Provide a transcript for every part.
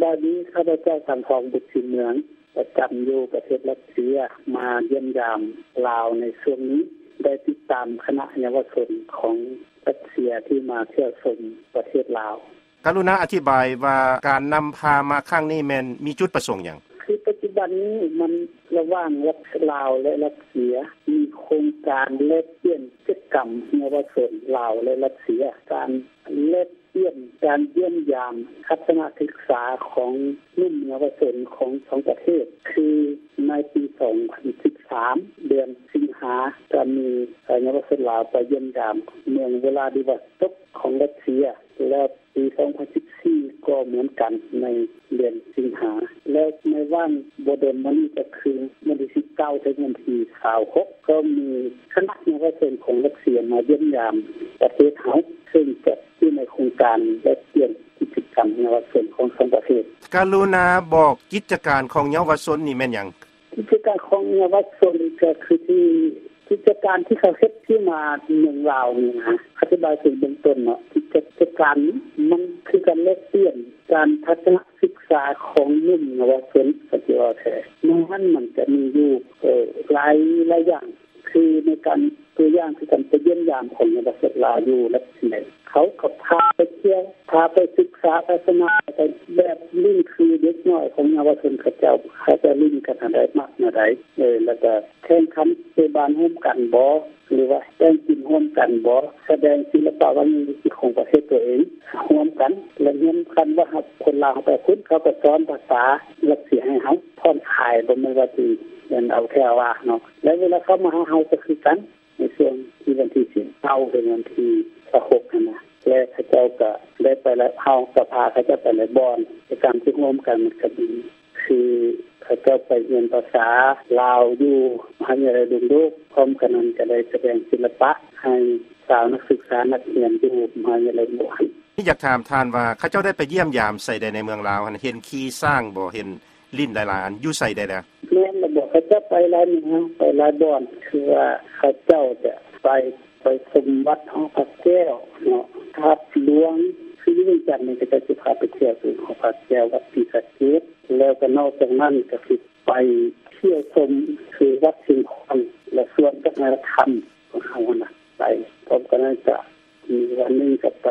ອັນນີ້ ຂ້າພະເຈົ້າ ສັງທອງ ບຸດສີເມືອງ ປະຈຳຢູ່ປະເທດຣັດເຊຍ ມາຢ້ຽມຢາມລາວໃນຊ່ວງນີ້ ໄດ້ຕິດຕາມຄະນະເຍົາວະຊົນຂອງຣັດເຊຍທີ່ມາທ່ຽວຊົມປະເທດລາວ. ກະລຸນາອະທິບາຍວ່າ ການນຳພາມາຄັ້ງນີ້ແມ່ນມີຈຸດປະສົງຫຍັງ? ຄືປັດຈຸບັນນີ້ມັນລະຫວ່າງລາວ ແລະ ຣັດເຊຍ ມີໂຄງການແລກປ່ຽນກິດຈະກຳເຍົາວະຊົນລາວ ແລະ ຣັດເຊຍ ການແລກປ່ຽນ ການຢ້ຽມຢາມ ທັດສະນະສຶກສາຂອງໜຸ່ມເຍົາວະຊົນຂອງສອງປະເທດ ຄືໃນປີສອງພັນສິບສາມ ເດືອນສິງຫາ ກະມີເຍົາວະຊົນລາວໄປຢ້ຽມຢາມເມືອງວລາດິວອສໂຕກຂອງຣັດເຊຍ ແລ້ວປີສອງພັນສິບສີ່ ກໍເໝືອນກັນໃນເດືອນສິງຫາ ແລ້ວໃນຫວ່າງບໍ່ດົນມານີ້ ກະຄືວັນທີສິບເກົ້າ ເຖິງວັນທີຊາວຫົກ ກໍມີຄະນະເຍົາວະຊົນຂອງຣັດເຊຍມາຢ້ຽມຢາມປະເທດເຮົາ ເຊິ່ງຈະຢູ່ໃນໂຄງການແລກປ່ຽນກິດຈະກຳເຍົາວະຊົນຂອງສອງປະເທດ. ກະລຸນາບອກກິດຈະການຂອງເຍົາວະຊົນນີ້ແມ່ນຫຍັງ? ກິດຈະການຂອງເຍົາວະຊົນກະຄືທີ່ ກິດຈະການທີ່ເຂົາເຮັດທີ່ມາເມືອງລາວນີ້ນະ ອະທິບາຍເປັນເບື້ອງຕົ້ນເນາະ ກິດຈະການນີ້ມັນຄືການແລກປ່ຽນການທັດສະນະສຶກສາຂອງໜຸ່ມເຍົາວະຊົນ ກະຊິເວົ້າແທ້ ໃນນັ້ນມັນກະມີຢູ່ ເອີ ຫຼາຍ ຫຼາຍຢ່າງ ຄືໃນການ ຕົວຢ່າງຄືການໄປຢ້ຽມຢາມຂອງເຍົາວະຊົນລາວຢູ່ລັດເຊຍ ເຂົາກໍພາໄປທ່ຽວ ພາໄປສຶກສາທັດສະນະ ແບບຫຼິ້ນຄືເດັກນ້ອຍຂອງເຍົາວະຊົນເຂົາເຈົ້າ ເຂົາເຈົ້າຫຼິ້ນກັນແນວໃດ ມັກແນວໃດ ເອີ ແລ້ວກໍແຂ່ງຂັນເຕະບານຮ່ວມກັນບໍ ຫຼືວ່າແຕ່ງກິນຮ່ວມກັນບໍ ສະແດງສິລະປະວັດທະນະທຳຂອງປະເທດຕົວເອງຮ່ວມກັນ ແລະ ຮຽນກັນວ່າຄົນລາວເຮົາໄປພຸ້ນ ເຂົາກໍສອນພາສາຣັດເຊຍໃຫ້ເຮົາ ຜ່ອນຄາຍ ບໍ່ແມ່ນວ່າຊິເອົາແທ້ເອົາວ່າເນາະ ແລະ ເວລາເຂົາມາຫາເຮົາກໍຄືກັນ ໃນຊ່ວງທີ່ວັນທີສິບເກົ້າ ເຖິງວັນທີຊາວຫົກຫັ້ນນະ ແລະ ເຂົາເຈົ້າກໍໄດ້ໄປຫຼາຍ ເຮົາກໍພາເຂົາເຈົ້າໄປຫຼາຍບ່ອນ ກິດຈະກຳທີ່ຮ່ວມກັນມັນກໍມີ ຄືເຂົາເຈົ້າໄປຮຽນພາສາລາວຢູ່ມະຫາວິທະຍາໄລດົງໂດກ ພ້ອມກັນນັ້ນກໍໄດ້ສະແດງສິລະປະໃຫ້ຊາວນັກສຶກສານັກຮຽນຢູ່ມະຫາວິທະຍາໄລດົງໂດກ. ຢາກຖາມທ່ານວ່າ ເຂົາເຈົ້າໄດ້ໄປຢ້ຽມຢາມໃສແດ່ໃນເມືອງລາວຫັ້ນ ເຫັນຂີ່ຊ້າງບໍ່ ເຫັນຫຼິ້ນຫຼາຍໆອັນ ຢູ່ໃສແດ່ລະ? ແມ່ນລະບໍ ເຂົາເຈົ້າໄປຫຼາຍເມືອງ ໄປຫຼາຍບ່ອນ ຄືວ່າເຂົາເຈົ້າຈະໄປ ໄປຊົມວັດຫໍພະແກ້ວເນາະ ທາດຫຼວງ ຄືຢູ່ວຽງຈັນນີ້ ເຂົາເຈົ້າຊິພາໄປທ່ຽວທີ່ຫໍພະແກ້ວ ວັດສີສະເກດ ແລ້ວກໍນອກຈາກນັ້ນກໍຊິໄປທ່ຽວຊົມຄືວັດຊຽງຂວາງ ແລະ ສວນວັດທະນະທຳຂອງເຮົາຫັ້ນນະ ໄປ ພ້ອມກັນນັ້ນກໍ ມີວັນໜຶ່ງກໍໄປ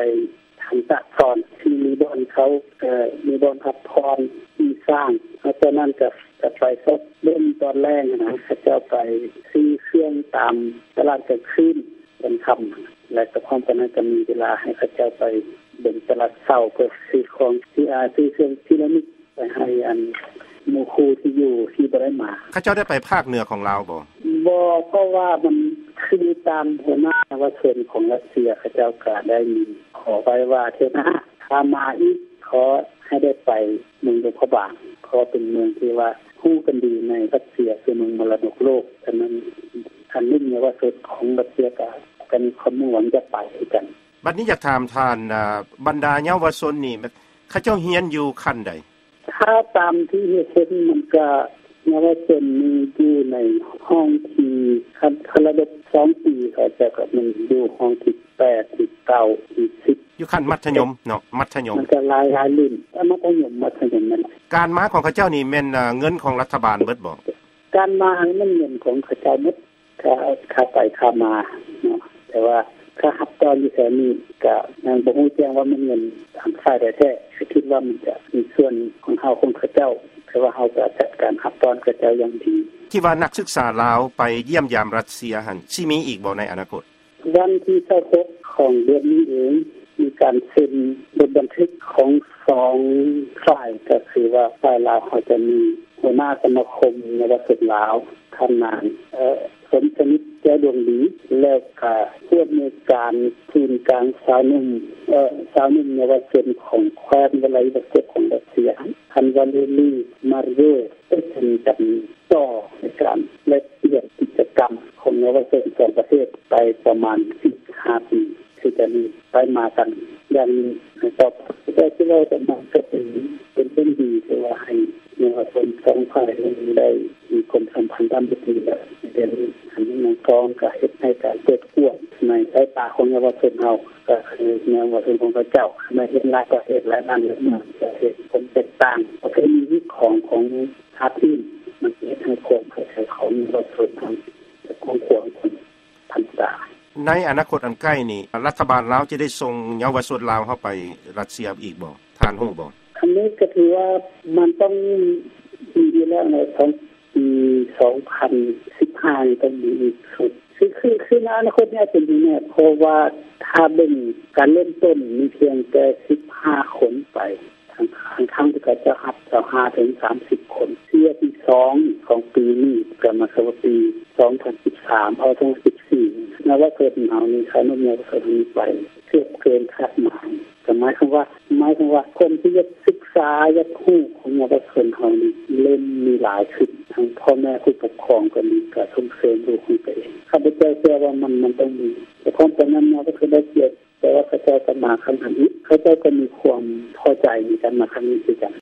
ທາງຕາກສອນ ທີ່ມີບ່ອນເຂົາ ເອີ ມີບ່ອນພັກຜ່ອນຂີ່ຊ້າງ ນອກຈາກນັ້ນກໍ ກໍໄປຊອກເບິ່ງຕອນແລງຫັ້ນນະ ເຂົາເຈົ້າໄປຊື້ເຄື່ອງຕາມຕະຫຼາດກາງຄືນຕອນຄ່ຳ ແລະ ກໍພ້ອມກັນນັ້ນກໍມີເວລາໃຫ້ເຂົາເຈົ້າໄປເບິ່ງຕະຫຼາດເຊົ້າ ເພື່ອຊື້ຂອງທີ່ ອາ ຊື້ເຄື່ອງທີ່ລະນຶກ ໄປໃຫ້ອັນໝູ່ຄູ່ທີ່ຢູ່ທີ່ບໍ່ໄດ້ມາ. ເຂົາເຈົ້າໄດ້ໄປພາກເໜືອຂອງລາວບໍ່? ບໍ່ ເພາະວ່າມັນຄືຕາມຫົວໜ້າເຍົາວະຊົນຂອງຣັດເຊຍ ເຂົາເຈົ້າກໍໄດ້ມີຂໍໄວ້ວ່າ ເທື່ອໜ້າຖ້າມາອີກ ຂໍໃຫ້ໄດ້ໄປເມືອງຫຼວງພະບາງ ເພາະເປັນເມືອງທີ່ວ່າຮູ້ກັນດີໃນຣັດເຊຍ ຄືເມືອງມໍລະດົກໂລກ. ສະນັ້ນ ອັນໜຸ່ມເຍົາວະຊົນຂອງຣັດເຊຍກໍ ກໍມີຄວາມມຸ່ງຫວັງຈະໄປຄືກັນ. ບັດນີ້ຢາກຖາມທ່ານ ອາ ບັນດາເຍົາວະຊົນນີ້ ເຂົາເຈົ້າຮຽນຢູ່ຂັ້ນໃດ? ຖ້າຕາມທີ່ເຫັນ ມັນກະເຍົາວະຊົນນີ້ຢູ່ໃນຫ້ອງທີ່ ຄັນ ຄັນລະດັບສອງປີ ເຂົາເຈົ້າກະແມ່ນຢູ່ຫ້ອງທີແປດ ທີເກົ້າ ທີສິບ ຢູ່ຂັ້ນມັດທະຍົມເນາະ ມັດທະຍົມ ມັນກະຫຼາຍ ຫຼາຍລຸ້ນ ມັດທະຍົມ ມັດທະຍົມນັ້ນ. ການມາຂອງເຂົາເຈົ້ານີ້ແມ່ນ ເງິນຂອງລັດຖະບານເບິດບໍ່? ການມານີ້ແມ່ນເງິນຂອງເຂົາເຈົ້າໝົດ. ຄ່າ ຄ່າໄປຄ່າມາເນາະ ແຕ່ວ່າຄ່າຮັບຕ້ອນຢູ່ແຖວນີ້ກະຍັງບໍ່ຮູ້ແຈ້ງວ່າແມ່ນເງິນທາງຝ່າຍໃດແທ້ ກະຄິດວ່າມັນຈະມີສ່ວນຂອງເຮົາຂອງເຂົາເຈົ້າ ແຕ່ວ່າເຮົາກະຈັດການຮັບຕ້ອນເຂົາເຈົ້າຢ່າງດີ. ທີ່ວ່ານັກສຶກສາລາວໄປຢ້ຽມຢາມຣັດເຊຍຫັ້ນ ຊິມີອີກບໍ່ໃນອະນາຄົດ? ວັນທີຊາວຫົກຂອງເດືອນນີ້ເອງ ມີການເຊັນບົດບັນທຶກຂອງສອງຝ່າຍ ກະຄືວ່າຝ່າຍລາວເຮົາຈະມີຫົວໜ້າສະມາຄົມເຍົາວະຊົນລາວ ທ່ານນາງ ເອີ ສົມສະໜິດ ແກ້ວດວງດີ ແລ້ວກະຜູ້ອຳນວຍການສູນກາງຊາວໜຸ່ມ ເອີ ຊາວໜຸ່ມເຍົາວະຊົນຂອງແຂວງວະລາດິວອສໂຕກຂອງຣັດເຊຍ ທ່ານ ວາເລລີ ມາເຣຍ ໄດ້ເຊັນກັນຕໍ່ໃນການແລກປ່ຽນກິດຈະກຳຂອງເຍົາວະຊົນສອງປະເທດໄປປະມານສິບຫ້າປີ ທີ່ຈະມີໄປມາກັນຢ່າງນີ້ຕໍ່ໄປ. ແຕ່ທີ່ເວົ້າກັນມາກໍເປັນ ເປັນເລື່ອງດີ ທີ່ວ່າໃຫ້ເຍົາວະຊົນສອງຝ່າຍນີ້ໄດ້ມີຄວາມສຳພັນທຳອິດດີ ແລະ ປັນອັນນີ້ ມັນກໍ ກໍເຮັດໃຫ້ການເປີດກວ້າງໃນສາຍຕາຂອງເຍົາວະຊົນເຮົາ ກໍຄືເຍົາວະຊົນຂອງເຂົາເຈົ້າ ເມື່ອເຫັນຫຼາຍປະເທດ ຫຼາຍບ້ານ ຫຼາຍເມືອງ ຈະເຫັນຄວາມແຕກຕ່າງ ປະເພນີຂອງ ຂອງຊາດອື່ນ ມັນເຮັດໃຫ້ຄວາມເຂົ້າໃຈຂອງເຍົາວະຊົນເຮົາຈະກວ້າງຂວາງຂຶ້ນທັນຕາ. ໃນອະນາຄົດອັນໃກ້ນີ້ ລັດຖະບານລາວຈະໄດ້ສົ່ງເຍົາວະຊົນລາວເຮົາໄປຣັດເຊຍອີກບໍ່? ທ່ານຮູ້ບໍ່? ອັນນີ້ກໍຖືວ່າມັນຕ້ອງມີຢູ່ແລ້ວໃນ ປີສອງພັນສິບຫ້ານີ້ຕ້ອງມີອີກຊຸດ ຄື ຄື ຄືໃນອະນາຄົດນີ້ອາດຈະມີແນ່ ເພາະວ່າຖ້າເບິ່ງການເລີ່ມຕົ້ນມີພຽງແຕ່ສິບຫ້າຄົນໄປ ທາງ ທາງ ທາງທີ່ເຂົາເຈົ້າຮັບຊາວຫ້າເຖິງສາມສິບຄົນ ເທື່ອທີສອງຂອງປີນີ້ ກໍໝາຍຄວາມວ່າປີສອງພັນສິບສາມ ເອົາ ສອງພັນສິບສີ່ ເຍົາວະຊົນເຮົານີ້ ຂະໜຸມເຍົາວະຊົນເຮົານີ້ໄປເກືອບເກີນຄາດໝາຍ ກໍໝາຍຄວາມວ່າ ໝາຍຄວາມວ່າຄົນທີ່ຢາກສຶກສາ ຢາກຮູ້ຂອງເຍົາວະຊົນເຮົານີ້ ເລີ່ມມີຫຼາຍຂຶ້ນ ທັງພໍ່ແມ່ຜູ້ປົກຄອງກໍດີ ກໍສົ່ງເສີມລູກຂອງຕົວເອງ. ຂ້າພະເຈົ້າເຊື່ອວ່າມັນ ມັນຕ້ອງມີ ແຕ່ຄວາມປານນັ້ນມາກໍຄືໄດ້ກຽດ ແຕ່ວ່າເຂົາເຈົ້າກໍມາຄັ້ງທຳອິດ ເຂົາເຈົ້າກໍມີຄວາມພໍໃຈໃນການມາຄັ້ງນີ້ຄືກັນ.